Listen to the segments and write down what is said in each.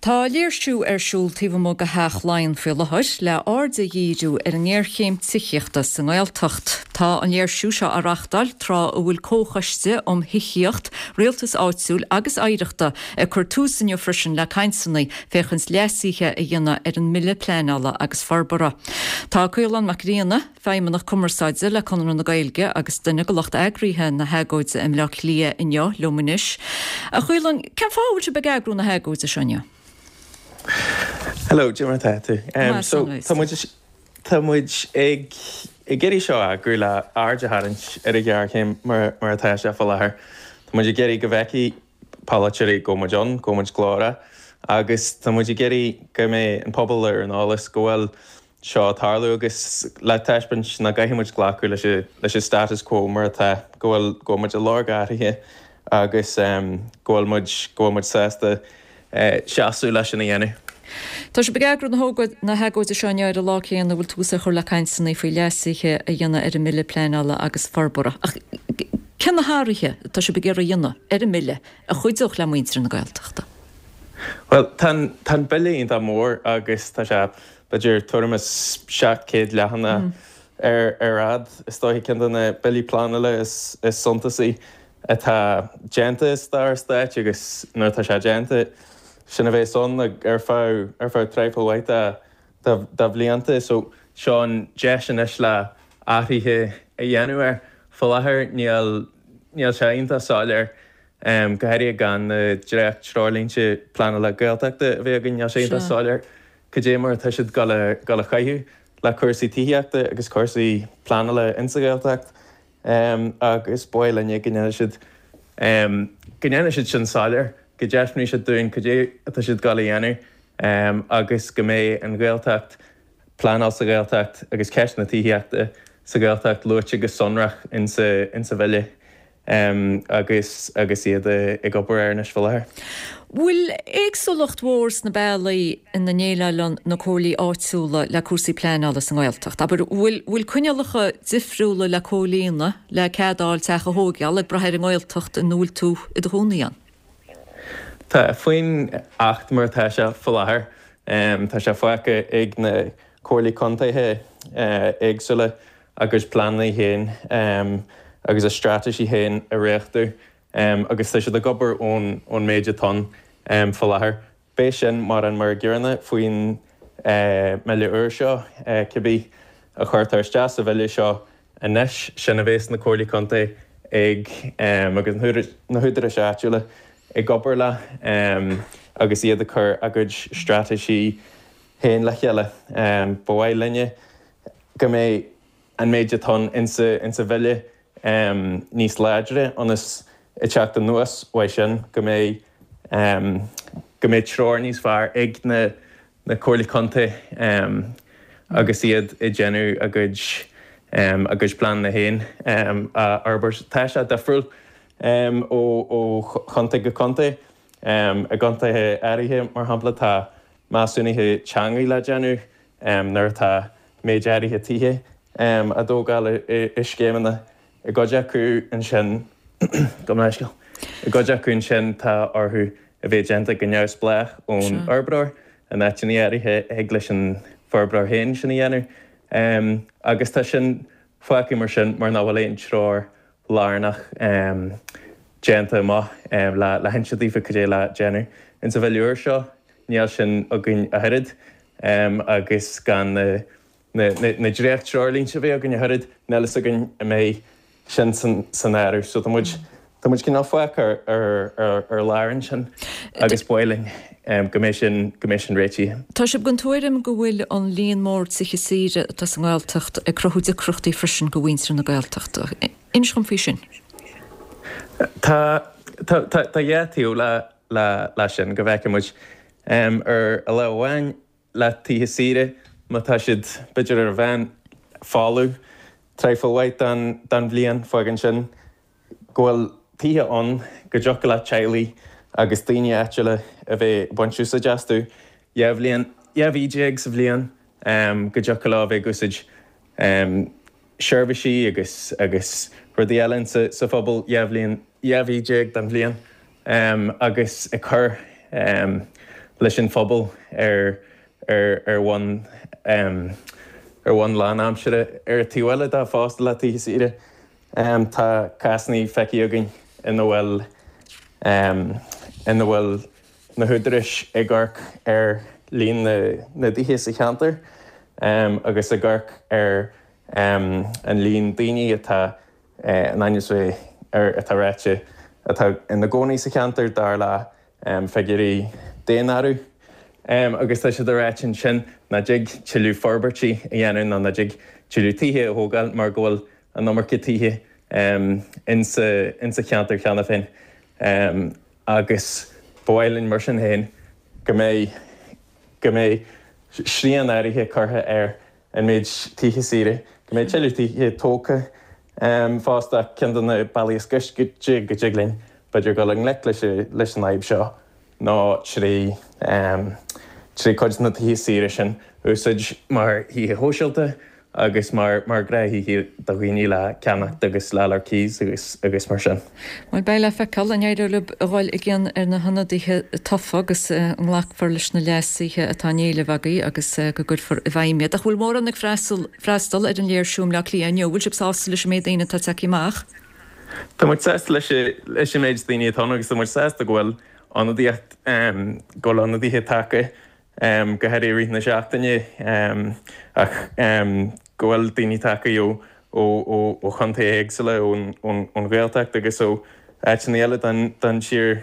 Tá léirsiú ar siúl taobh amuigh de Theach Laighean faoi láthair le aird a dhíriú ar an ngéarchéim tithíochta sa nGaeltacht. Tá an léirsiú seo á reachtáil tráth a bhfuil Comhchoiste um Thithíocht, Rialtas Áitiúil agus Oidhreachta ag cur tús inniu freisin le cainteanna féachaint leasuithe a dhéanamh ar an mBille Pleanála agus Forbartha. Tá Caolán Mac Grianna, Feidhmeannach Cumarsáide le Conradh na Gaeilge agus duine de lucht eagraithe na hagóide i mBleá Cliath inniu liom anois. A Chaoláin, cén fáth a bhfuil sibh ag eagrú na hagóide seo inniu? Hello, cad é mar atá tú? So, tá muid, tá muid ag ag iarraidh seo a eagrú le aird a tharraingt ar an ghéarchéim mar mar atá sé faoi láthair. Tá muid ag iarraidh go bhfeicfidh polaiteoirí go bhfuil muid ann, go bhfuil muid glórach agus tá muid ag iarraidh go mbeidh an pobal ar an eolas go bhfuil seo ag tarlú agus le taispeáint nach gcaithfidh muid glacadh leis an leis an status quo mar atá, go bhfuil go bhfuil muid ag lorg athraithe agus go bhfuil muid go bhfuil muid sásta seasamh leis sin a dhéanamh. Tá sibh ag eagrú na na hagóide seo inniu ar an lá céanna a bhfuil tús á chur le cainteanna faoi leasuithe a dhéanamh ar an mBille Pleanála agus Forbartha. Ach cé na hathruithe atá sibh ag iarraidh a dhéanamh ar an mBille a chuideodh le muintir na Gaeltachta? Bhuel, tá an, tá an bille iontach mór agus tá sé, b'fhéidir, tuairim is 700 leathanach ar, ar fhad. Is dóiche ceann de na billí pleanála is, is suntasaí atá déanta i stair an stáit agus nuair atá sé déanta, sin a bheas ann ar feadh, ar feadh traidhfil mhaith de, de, de bhlianta. So, seo an deis anois le athruithe a dhéanamh air. Faoi láthair níl, níl sé iontach soiléir Go háirithe gan na dréacht-treoirlínte pleanála Gaeltachta a bheith againn, níl sé iontach soiléir cad é mar atá siad ag dul a chaitheamh le cúrsaí tithíochta agus cúrsaí pleanála insa Ghaeltacht agus ba mhaith linne go ndéanfaidh siad go ndéanfaidh siad sin soiléir, go dtaispeánfaidh siad dúinn cad é atá siad ag dul a dhéanamh agus go mbeidh an Ghaeltacht, pleanáil sa Ghaeltacht agus ceist na tithíochta sa Ghaeltacht luaite go sonrach insa bhille. agus agus iad ag obair air anois faoi láthair. Bhfuil éagsúlacht mhór sna bealaí ina ndéileálann na comhairlí áitiúla le cúrsaí pleanála sa nGaeltacht? Abair, bhfuil bhfuil coinníollacha difriúla le comhlíonadh le cead a fháil teach a thóigeáil ag brath ar an nGaeltacht ina bhfuil tú i do chónaí ann? Tá, faoin Acht mar atá sé faoi láthair, tá sé fágtha ag na comhairlí contaetha éagsúla a gcuid pleananna féin agus a straitéisí féin a dhréachtú agus tá siad ag obair ón méid atá ann faoi láthair. Beidh sin mar an mar an gcéanna faoin mBille úr seo, cibé a chuirtear isteach sa Bhille seo anois, sin a bheas na Comhairlí Contae ag agus na húdaráis áitiúla ag obair leo agus iad ag cur a gcuid straitéisí féin le chéile. Ba mhaith linne go mbeidh an méid atá ann insa bhille níos láidre ionas ag teacht anuas uaidh sin go mbeidh go mbeidh treoir níos fearr ag na na comhairlí contae agus iad ag déanamh a gcuid a gcuid pleananna féin a fhorbairt. Tá sé difriúil ó ó chontae go contae. I gcontaetha áirithe, mar shampla, tá measúnuithe teanga le déanamh nuair atá méid áirithe tithe á dtógáil i scéimeanna. I gcuid acu ansin, gabh mo leithscéal, i gcuid acu ansin tá orthu a bheith déanta go neamhspleách ón fhorbróir, in áiteanna áirithe thig leis an bhforbróir féin sin a dhéanamh agus tá sin fágtha mar sin mar nach bhfuil aon treoir lárnach déanta amach le hinse daofa cad é le déanamh. Insa bhille úr seo níl sin againn ach oiread agus gan na dréacht-treoirlínte a bheith againn ach oiread, níl fhios againn an mbeidh sin san áireamh. So tá muid, tá muid cineál fágtha ar lár ansin agus ba mhaith linn go mbeidh sin, go mbeidh sin réitithe. Tá sibh den tuairim go bhfuil an líon mór tithe saoire atá sa nGaeltacht ag cruthú deacrachtaí freisin do mhuintir na Gaeltachta. Inis dhom faoi sin. Tá, tá, tá dhá taobh le le sin, go bhfeiceann muid ar lámh amháin le tithe saoire, má tá siad b'fhéidir ar an mheán folamh traidhfil mhaith den bhliain, fágann sin go bhfuil tithe ann go dtiocfadh le teaghlaigh agus daoine áitiúla a bheith ag baint úsáid astu 12 bhliain, 12 mhí sa bhliain, go dtiocfadh leo a bheith ag úsáid seirbhísí agus agus rudaí eile sa phobal 12 bhliain, 12 mhí den bhliain agus ag cur. leis an phobal ar ar ar bhonn ar bhonn lánaimseartha. Ar an taobh eile de fosta le tithe saoire, tá cásanna feicthe againn ina bhfuil ina bhfuil na húdaráis ag amharc ar líon na dtithe sa cheantar agus ag amharc ar an líon daoine atá in ainm is bheith ar atá ráite atá ina gcónaí sa cheantar dar le figiúirí daonáirimh. Agus tá siad ag ráit ansin nach dtig tuilleadh forbairtí a dhéanamh nó nach dtig tuilleadh tithe a thógáil mar go bhfuil an iomarca tithe insa cheantar cheana féin. Agus ba mhaith linn mar sin féin go mbeidh go mbeidh srian áirithe curtha ar an méid tithe saoire, go mbeidh tuilleadh tithe tógtha fosta ach ceann de na bealaí is gaiste go dtig linn b'fhéidir dul i ngleic leis leis an fhadhb seo ná trí trí cuid de na tithe saoire sin a úsáid mar thithe shóisialta agus mar mar ghnáth-thithe do dhaoine le ceannacht agus le fháil ar cíos agus agus mar sin. Bhuel, beidh le feiceáil an éireoidh libh a dhul i gcion ar na hionadaithe tofa agus an nglacfar leis na leasuithe atá á n-éileamh agaibh agus go gcuirfear i bhfeidhm iad. Ach bhfuil mórán ag freastal ar an léirsiú i mBleá Cliath inniu? Bhfuil sibh sásta leis an méid daoine atá tagtha amach? Tá muid sásta leis leis an méid daoine atá ann agus tá muid sásta go bhfuil ionadaíocht go bhfuil ionadaithe tagtha go háirithe i rith na seachtaine, ach go bhfuil daoine tagtha ó chontaetha éagsúla, ón Ghaeltacht agus ó áiteanna eile den tír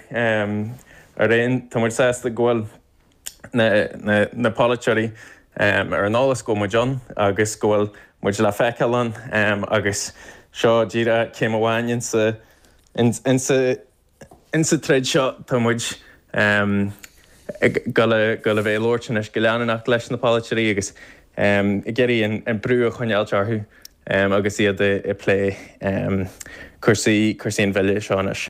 araon. Tá muid sásta go bhfuil na polaiteoirí ar an eolas go bhfuil muid ann agus go bhfuil muid le feiceáil ann agus seo díreach céim amháin insa Insa troid seo tá muid ag dul a bheith ag labhairt anois go leanúnach leis na polaiteoirí agus ag iarraidh an brú a choinneáilt orthu agus iad ag plé cúrsaí an bhille seo anois.